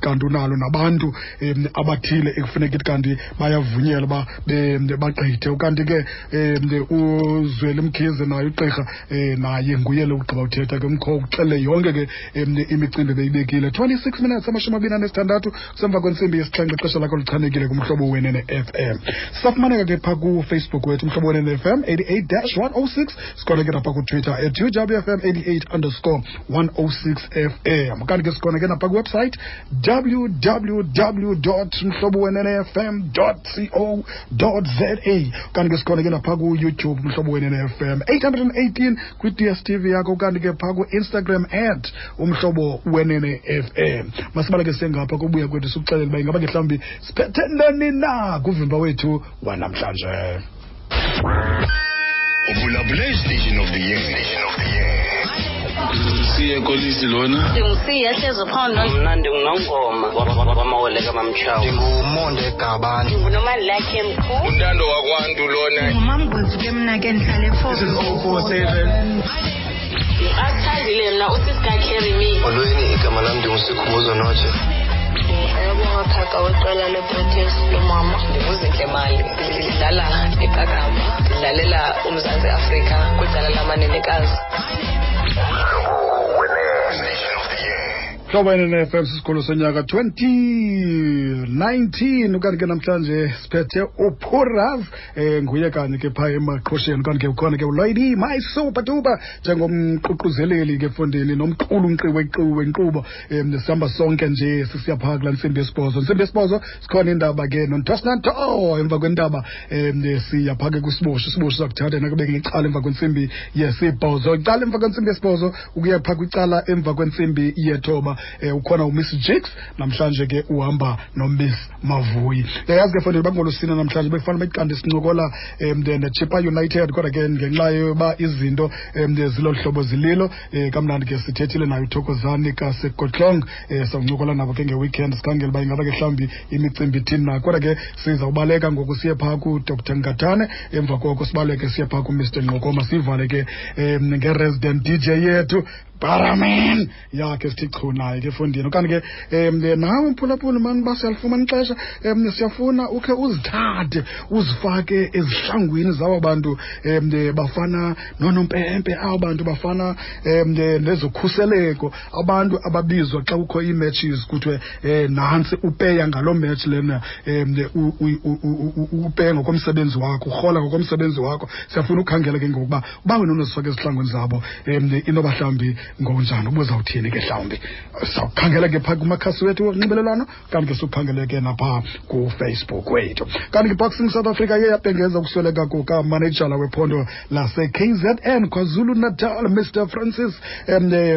kanti unalo nabantu abathile ekufuneka ithi kanti bayavunyelwa uba bagqithe. Ukanti ke uZweli Mkhize naye ugqirha, naye nguye lo ugqiba uthetha ke umkho uxele yonke ke imicimbi beyibekile. 26 minutes, 26 kusemva kwentsimbi yesixhenxe, ixesha lakho lichanekile kuMhlobo Wenene FM. Sisafumaneka ke phaa kuFacebook wethu, Umhlobo Wenene FM 88-106. Sikhona ke napha kuTwitter at UWFM 88_106 FM. Kanti ke sikhona ke napha kwiwebsite www.mhlobowenenefm.co.za. Kanti ke sikhona ke napha kuYouTube, Umhlobo Wenene FM 818 kwi-DStv yakho. Kanti ke phaa ku-Instagram at Umhlobo Wenene FM. Masibaleke sengapha kubuya kwethu sikuxelele uba ingaba ke mhlawumbi siphethe ntoni na kuvimba wethu wanamhlanje. Ubulabule Station of the Year. Siye Kolisi lona. Ndingusiya hlezi phondo. Mna ndinguNongoma wamawele kaMamtshawe. Ndingumonde Gabane. Ndingunomalakhe Mkhu. Untando wakwantu lona. Ngumamgwevu ke mna ke ndihlale This is 047. Athandile mna usisika carry me. Molweni, igama lam ndinguSikhumbuzo Notshe. Ayabonga Phaka weqela leProteas lomama. Ndinguzintle Mali, ndidlala iqakamba, ndidlalela uMzantsi Afrika kwicala lamanenekazi. Hlobo NNFM, sisikolo sonyaka 2019. Ukanti ke namhlanje siphethe uPurav, nguye kanye ke phaa emaqhosheni. Kanti ke ukhona ke uLady My Super Duper njengomququzeleli ke efondini nomqulunqi wenkqubo. Sihamba sonke nje sisiya phaa kulaa ntsimbi yesibhozo. Ntsimbi yesibhozo sikhona indaba ke nontosnanto. Emva kwendaba siya phaa ke kwisibosho. Isibosho sakuthatha nakubeke ngecala emva kwentsimbi yesibhozo, icala emva kwentsimbi yesibhozo ukuya phaa kwicala emva kwentsimbi yethoba. Ukhona uMiss Jigs namhlanje ke, uhamba noMiss Mavuyi. Yayazi ke fondini bangolusina namhlanje bekufanele bekanti sincokola neChippa United, kodwa ke ngenxa yoba izinto zilolu hlobo zililo, kamnandi ke sithethile nayo uThokozani kaSekotlong. Sawuncokola nabo ke ngeweekend, sikhangele uba ingaba ke mhlawumbi imicimbi ithini na. Kodwa ke sizawubaleka ngoku siye phaa kuDr Ngatane, emva koko sibaleke siye phaa kuMr Nqokoma, sivale ke nge-resident DJ yethu Baraman yakhe sithi chu naye ke efondini. Okanye ke nawe mphulaphuli mani, uba siyalifumana ixesha, siyafuna ukhe uzithathe uzifake ezihlangwini zaba bantu bafana noonompempe, abo bantu bafana nezokhuseleko, abantu ababizwa xa kukho ii-matches kuthiwe nantsi upeya ngaloo match lena, upeya ngokomsebenzi wakho, urhola ngokomsebenzi wakho. Siyafuna ukhangela ke ngokuba uba wena unozifaka ezihlangwini zabo, inoba mhlawumbi ngonjani, ubuzawuthini ke mhlawumbi. Sawukhangela ke phaa kumakhasi wethu wonxibelelwano, kanti ke siwukhangele ke naphaa kuFacebook wethu. Kanti ke Boxing South Africa iye yabhengeza ukusweleka kukamanejala wephondo lase-KZN, KwaZulu Natal, Mr Francis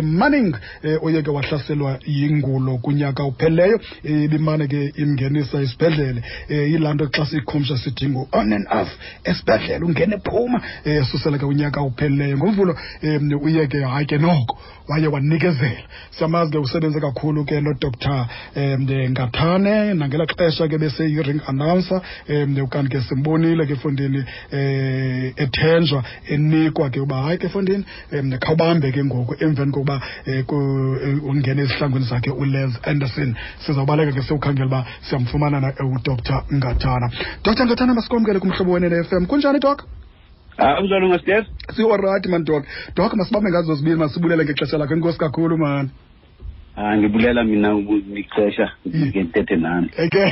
Manning, oye ke wahlaselwa yingulo kunyaka uphelileyo, ibimane ke imngenisa esibhedlele. Yilaa nto xa siyikhumsha sithi ngu-on and off esibhedlele, ungene phuma, susela ke unyaka uphelileyo. NgoMvulo uye ke hayi ke noko waye wanikezela. Siyamazi ke, usebenze kakhulu ke noDr Ngathane nangela xesha ke beseyi-ring announcer. Ukanti ke simbonile ke efondini ethenjwa, enikwa ke uba hayi ke efondini khawubambe ke ngoku emveni kokuba ungene ezihlangwini zakhe uLes Anderson. Sizawubaleka ke siwukhangela uba siyamfumana na uDr Ngathana. Dr Ngathana, masikwamkele kuMhlobo Wenene FM. Kunjani, Doc? Ah, unjani Ngastef? Si-alright man, Doc. Doc, masibambe ngazo zibini, masibulele ngexesha lakho. Enkosi kakhulu man. Ah, ngibulela mina ukuxesha ngike ndithethe nani. Okay.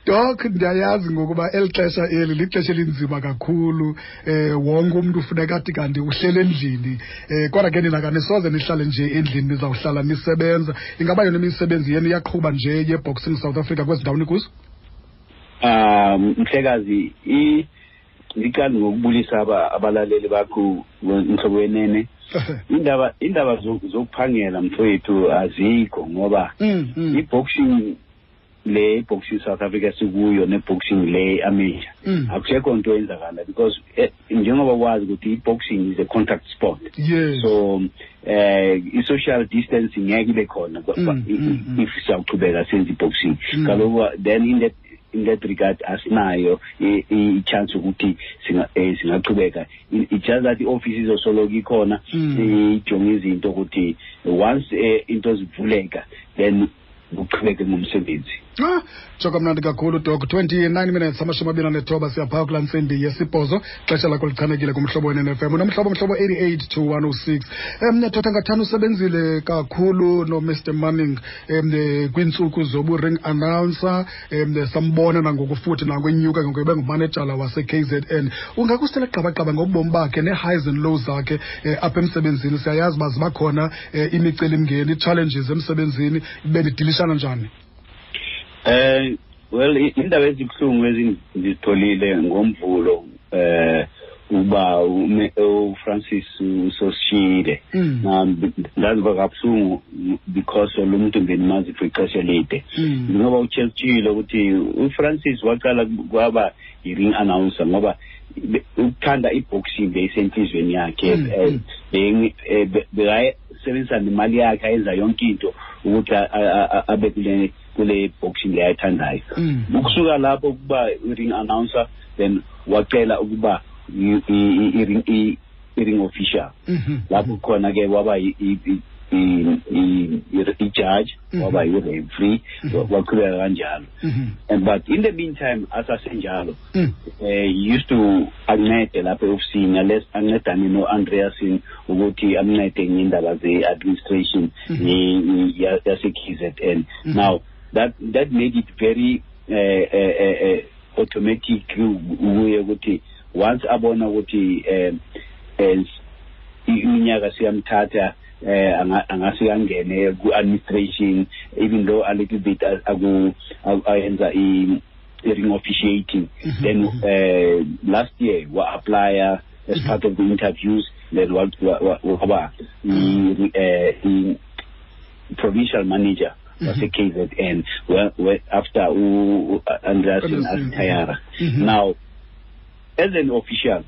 Doc, ndiyayazi ngokuba eli xesha eli lixesha elinzima kakhulu. Wonke umuntu ufuneka athi kanti uhlele endlini. Kodwa ke nina kanisoze nihlale nje endlini, nizawuhlala nisebenza. Ingaba yona imisebenzi yenu iyaqhuba nje ye-Boxing South Africa kwezi ndawo nikuzo? Ah, mhlekazi, ndiqala ngokubulisa abalaleli bakho, Mhlobo Wenene. Indaba zokuphangela mfowethu azikho ngoba i-boxing le, boxing South Africa sikuyo ne-boxing le amateur, akusekho nto eyenzakala because njengoba wazi ukuthi i-boxing is a contact sport, so i-social distancing ngeke ibe khona if siyawuchubeka senze i-boxing. Kaloku then in that in that regard asinayo i-chance ukuthi singaqhubeka. It's just that i-office izosoloko ikhona, ijonge izinto ukuthi once into zivuleka, then kuqhubeke ngomsebenzi. Tsho kamnandi kakhulu, Dok. 29 minutes, 29, siyaphaa kulaa ntsimbi yesibhozo. Xesha lakho lichanekile kuMhlobo Wenene FM, unomhlobo Mhlobo 88 to 106. Thotha, ngathana usebenzile kakhulu noMr Manning kwiintsuku zobu-ring announcer, sambona nangoku futhi nangwenyuka ngoku ebe ngumanejala wase-KZN. Ungakusitela gqabagqaba ngobomi bakhe nee-highs and lows zakhe apha emsebenzini? Siyayazi uba ziba khona imicelimngeni, ii-challenges emsebenzini. Benidilishana njani? Well, indaba ezibuhlungu ezindizitholile ngoMvulo uba uFrancis usosishiyile. Ndaziva kabuhlungu because lo muntu bendimazi for ixesha elide. Ngoba utshilo ukuthi uFrancis waqala kwaba i-ring announcer ngoba ukuthanda i-boxing beyisenhliziyweni yakhe. Bekayesebenzisa nemali yakhe, ayenza yonke into ukuthi abe kule boxing le ayithandayo. Ukusuka lapho ukuba i-ring announcer, then wacela ukuba i-ring official. Lapho khona ke waba i-judge, waba i-referee, waqhubeka kanjalo. And but in the meantime, asasenjalo, he used to ancede lapha e-ofisini, ancedane no-Andreasen ukuthi amncede ngendaba ze-administration yase-KZN. Now that made it very automatic kuye ukuthi once abona ukuthi iminyaka siyamthatha, angase angene ku-administration, even though a little bit aku ayenza i-ring officiating. Then last year wa-applya as part of the interviews, then waba i-provincial manager wase-KZN after u-Andreasen a-retire. Now as an official,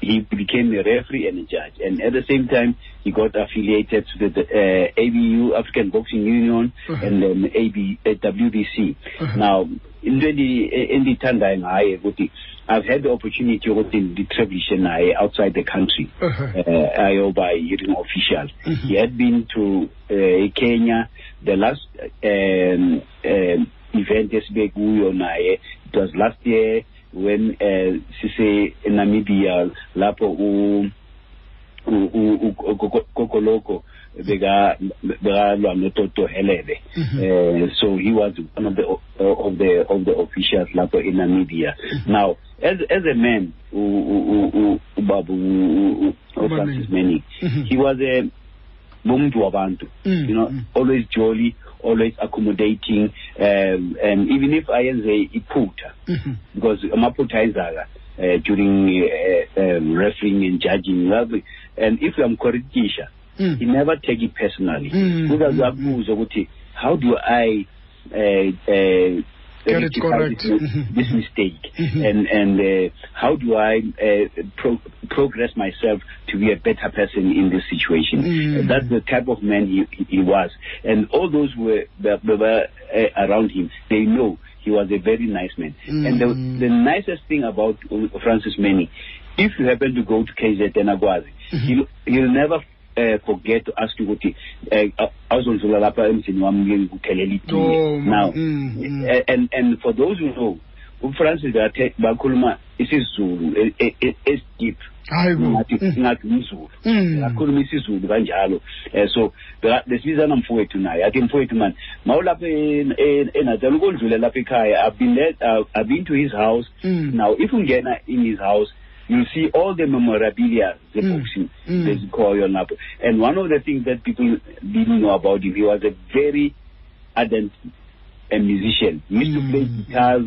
he became a referee and a judge, and at the same time he got affiliated to the ABU, African Boxing Union, and then AB, WBC. Now into endiyithandayo ngaye ukuthi I've had the opportunity ukuthi nditravelishe naye outside the country, ayoba i-ring official. He had been to Kenya. The last event esibe kuyo naye, it was last year when sise Namibia, lapho u Kokoloko beka bekalwa noToto Helebe. So he was one of the officials lapho in Namibia. Now as a man, ubaba uFrancis Manning, he was a umuntu wabantu, always jolly, always accommodating, and even if ayenze iphutha, because amaphutha ayenzaka during refereeing and judging, and if uyamcorrectisha, he never take it personally. Uzaze akubuze ukuthi how do I get it rectify correct. this mistake, and how do I progress myself to be a better person in this situation? That's the type of man he was, and all those who were around him, they know he was a very nice man. And the nicest thing about Francis Manning, if you happen to go to KZN akwazi, he'll never forget to ask you ukuthi awuzondlula lapha emzini wami ngikuthelela itiye. Oh, Now and for those who know uFrancis, bakhuluma isiZulu esideep. Hayi bo. Ngathi umZulu. Akhuluma isiZulu kanjalo. So besibizana mfowethu naye, athi mfowethu man, mawulapha eNatal ukondlula lapha ekhaya. I've been there, I've been to his house. Now if ungena in his house, you'll see all the memorabilia ze-boxing ezikhoyo lapho. And one of the things that people didn't know about him, he was a very ardent a musician. He used to play guitars,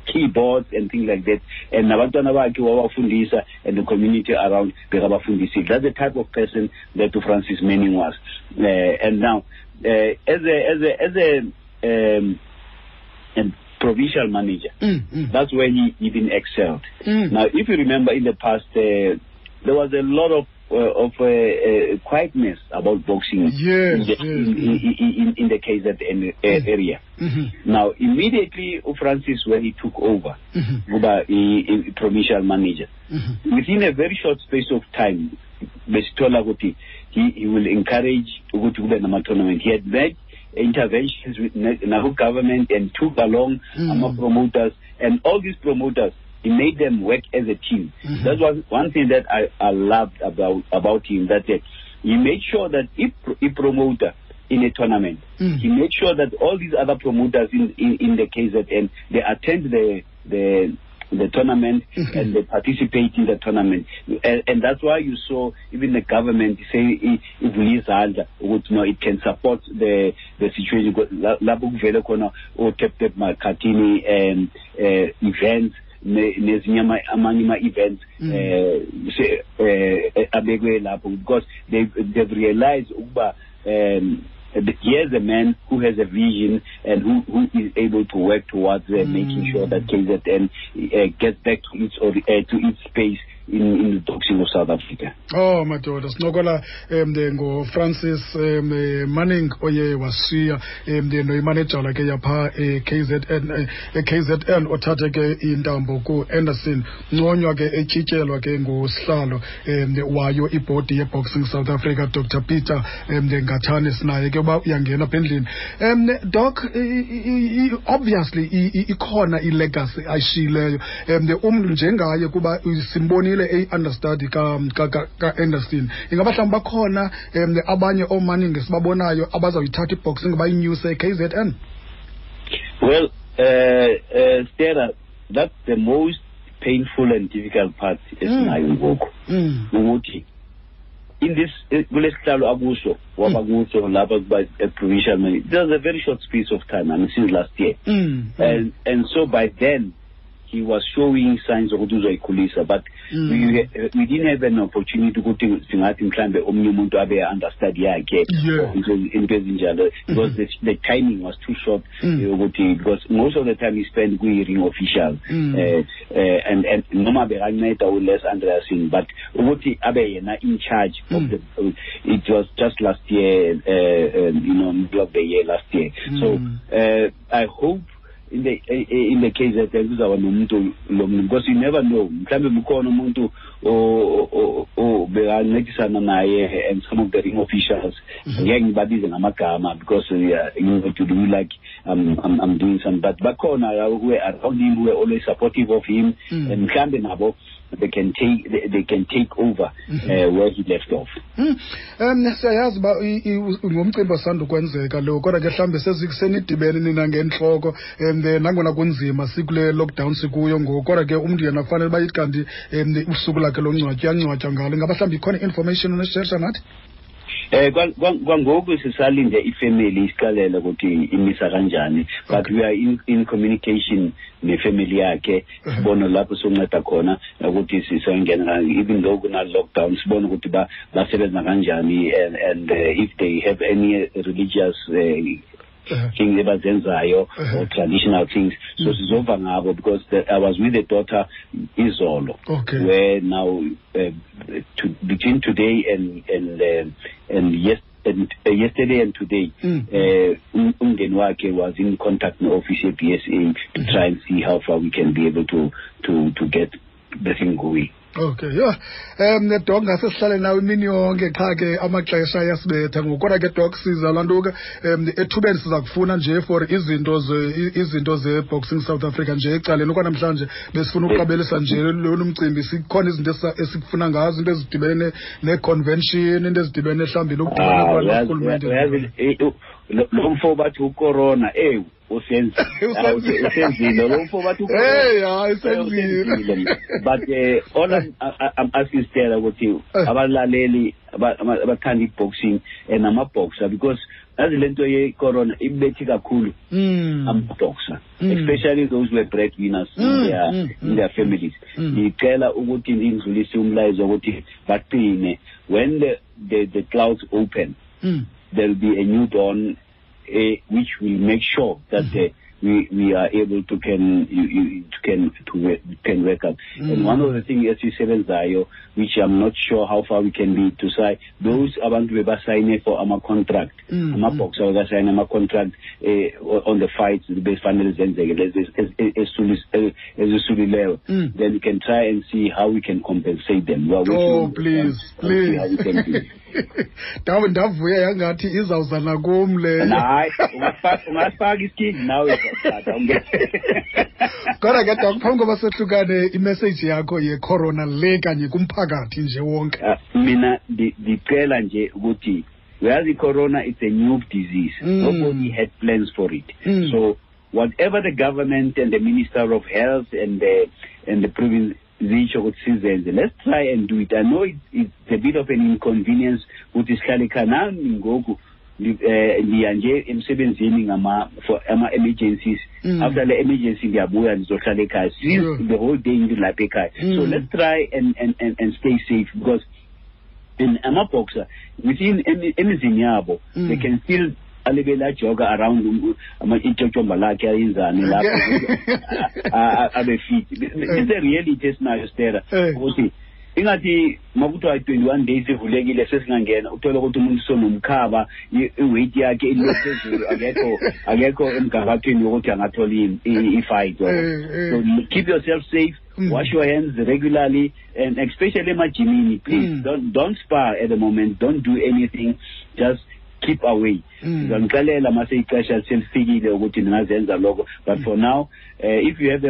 keyboards and things like that, and nabantwana bakhe wabafundisa, and the community around bekabafundisile. That's the type of person that Francis Manning was. And now as a provincial manager, that's where he even excelled. Now if you remember, in the past, there was a lot of quietness about boxing in the KZN area. Now, immediately, Francis, when he took over, kuba i-provincial manager, within a very short space of time, besithola ukuthi he will encourage ukuthi kube nama-tournament. He had made interventions with naku government and took along ama-promoters, and all these promoters, he made them work as a team. That was one thing that I loved about him, that he made sure that if a promoter in a tournament, he made sure that all these other promoters in the KZN, they attend the tournament and they participate in the tournament. And that's why you saw even the government say ivule izandla ukuthi no, it can support the situation. Lapho kuvele khona o-Tap Tap Makhathini events, nezinye amanye ama-events abekwe lapho, because they've realized ukuba here's a man who has a vision and who is able to work towards making sure that KZN gets back to its to its space in the boxing of South Africa. Oh madoda, sincokola ngoFrancis Manning oye washiya noyimanejala ke yapha e-KZN, othathe ke intambo ku-Anderson, nconywa ke etyityelwa ke ngusihlalo wayo ibhodi ye-Boxing South Africa, Dr Peter Ngathane. Sinaye ke uba uyangena apha endlini. Doc, obviously ikhona i-legacy ayishiyileyo umntu njengaye, kuba simbonile eyi-understudy ka-Anderson. Ingaba mhlawumbi bakhona abanye ooManning esibabonayo abazawuyithatha i-boxing bayinyuse e-KZN? Well, Stella, that's the most painful and difficult part esinayo ngoku, ukuthi in this kulesihlalo akuso waba kuso lapha kuba provincial manager, it was a very short space of time, I mean, since last year, and so by then he was showing signs ukuthi uzoyikhulisa, but we didn't have an opportunity ukuthi singathi mhlambe omnye umuntu abe understudy yakhe into ezinjalo, because the timing was too short, ukuthi because most of the time he spent kwi-ring official, and noma bekanceda uLes Andreasen, but ukuthi abe yena in charge of the, it was just last year, middle of the year last year. So I hope in the case that kuzaba nomuntu lo muntu, because you never know, mhlambe mukhona umuntu obekancedisana naye and some of the ring officials, ngeke ngibabize ngamagama because you know, to do like I'm doing some, but bakhona who were around him, who were always supportive of him, and mhlambe nabo they can take over where he left off. Siyayazi uba ngumcimbi osanda ukwenzeka lo, kodwa ke mhlawumbi senidibene nina ngentloko, nangona kunzima sikule lockdown sikuyo ngoku, kodwa ke umntu yena kufanele uba ithi kanti usuku lakhe longcwatywa uyangcwatywa ngalo. Ingaba mhlawumbi ikhona i-information oneshersha nathi? Kwangoku sisalinde ifamily isixelele ukuthi imisa kanjani, but we are in communication nefamily yakhe, sibone lapho sonceda khona ukuthi sisongena, even though kuna lockdown, sibone ukuthi basebenza kanjani, and if they have any religious things abazenzayo or traditional things, so sizova ngabo, because I was with the daughter izolo, where now between today and yesterday and today, umndeni wakhe was in contact with office BSA to try and see how far we can be able to get the thing going. Okay, yeah. Doc, ngase sihlale nawe imini yonke, qha ke amaxesha ayasibetha ngoku. Kodwa ke Doc, siza laa nto ke ethubeni siza kufuna nje for izinto ze-Boxing South Africa nje ecaleni. Okwanamhlanje besifuna ukuqabelisa nje lona umcimbi, sikhona izinto esikufuna ngazo, into ezidibene ne-convention, into ezidibene mhlawumbi nokudibana kwarhulumente. Lo mfo bathi ucorona, usenzile lo mfo bathi usenzile. But all I'm asking Stella ukuthi abalaleli abathanda i-boxing and ama-boxer, because yazi le nto ye-corona ibethi kakhulu ama-boxer, especially those who were breadwinners in their families. Ngicela ukuthi ngidlulise umlayezo ukuthi baqine. When the clouds open, there will be a new dawn, which will make sure that we are able to can you, you to can work up. And one of the things esisebenzayo, which I'm not sure how far we can be to say, those abantu bebasayine for ama-contract, ama-boxer bekasayine ama-contract on the fights befanele zenzeke lezi ezisulileyo, then we can try and see how we can compensate them. We are working Oh, on please, them and see how we please. can do it. Ndavuya yangathi izawuza nakum leyo. Hayi, ungasifaka isikindi nawe, tata. Kodwa ke Doc, phambi koba sohlukane, imessage yakho yecorona le kanye kumphakathi nje wonke. Mina ndicela nje ukuthi, uyazi, corona, it's a new disease. Nobody had plans for it. So whatever the government and the Minister of Health and the province zitsho ukuthi sizenze, let's try and do it. I know it's a bit of an inconvenience ukuthi sihlale ekhaya. Nami ngoku ndiya nje emsebenzini ngama for ama-emergencies. After le emergency ndiyabuya, ndizohlala ekhaya since the whole day ndilapha ekhaya. So let's try and stay safe, because in ama-boxer within emizini yabo, they can still alibele ajoga around ityotyomba lakhe, ayenzani lapho, abe fit. It's a reality esinayo, Stera, ukuthi ingathi makuthiwa 21 days ivulekile, sesingangena, uthole ukuthi umuntu sonomkhaba, i-weight yakhe ile phezulu, akekho emgangathweni wokuthi angathola i-fight. So keep yourself safe, wash your hands regularly, and especially emajimini, please, don't spar at the moment, don't do anything, just keep away. Ngizanixelela mase ixesha selifikile ukuthi ningazenza lokho, but for now, if you have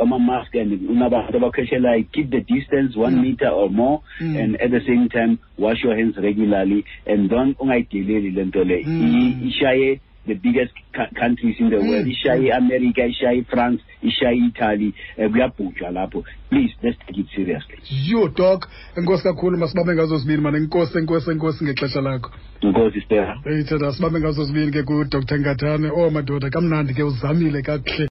ama-mask and unabantu abakhweshelayo, keep the distance 1 meter or more, and at the same time wash your hands regularly, and don't, ungayideleli le nto le. Ishaye the biggest countries in the world, ishaye America, ishaye France, ishaye Italy, kuyabhujwa lapho. Please, let's take it seriously. Yho Doc, enkosi kakhulu, masibambe ngazo zibini mane. Enkosi, enkosi, enkosi ngexesha lakho. Enkosi, Stera. Eyithanda, sibambe ngazo zibini ke kuDr Ngatane. Oh madoda, kamnandi ke, uzamile kakuhle.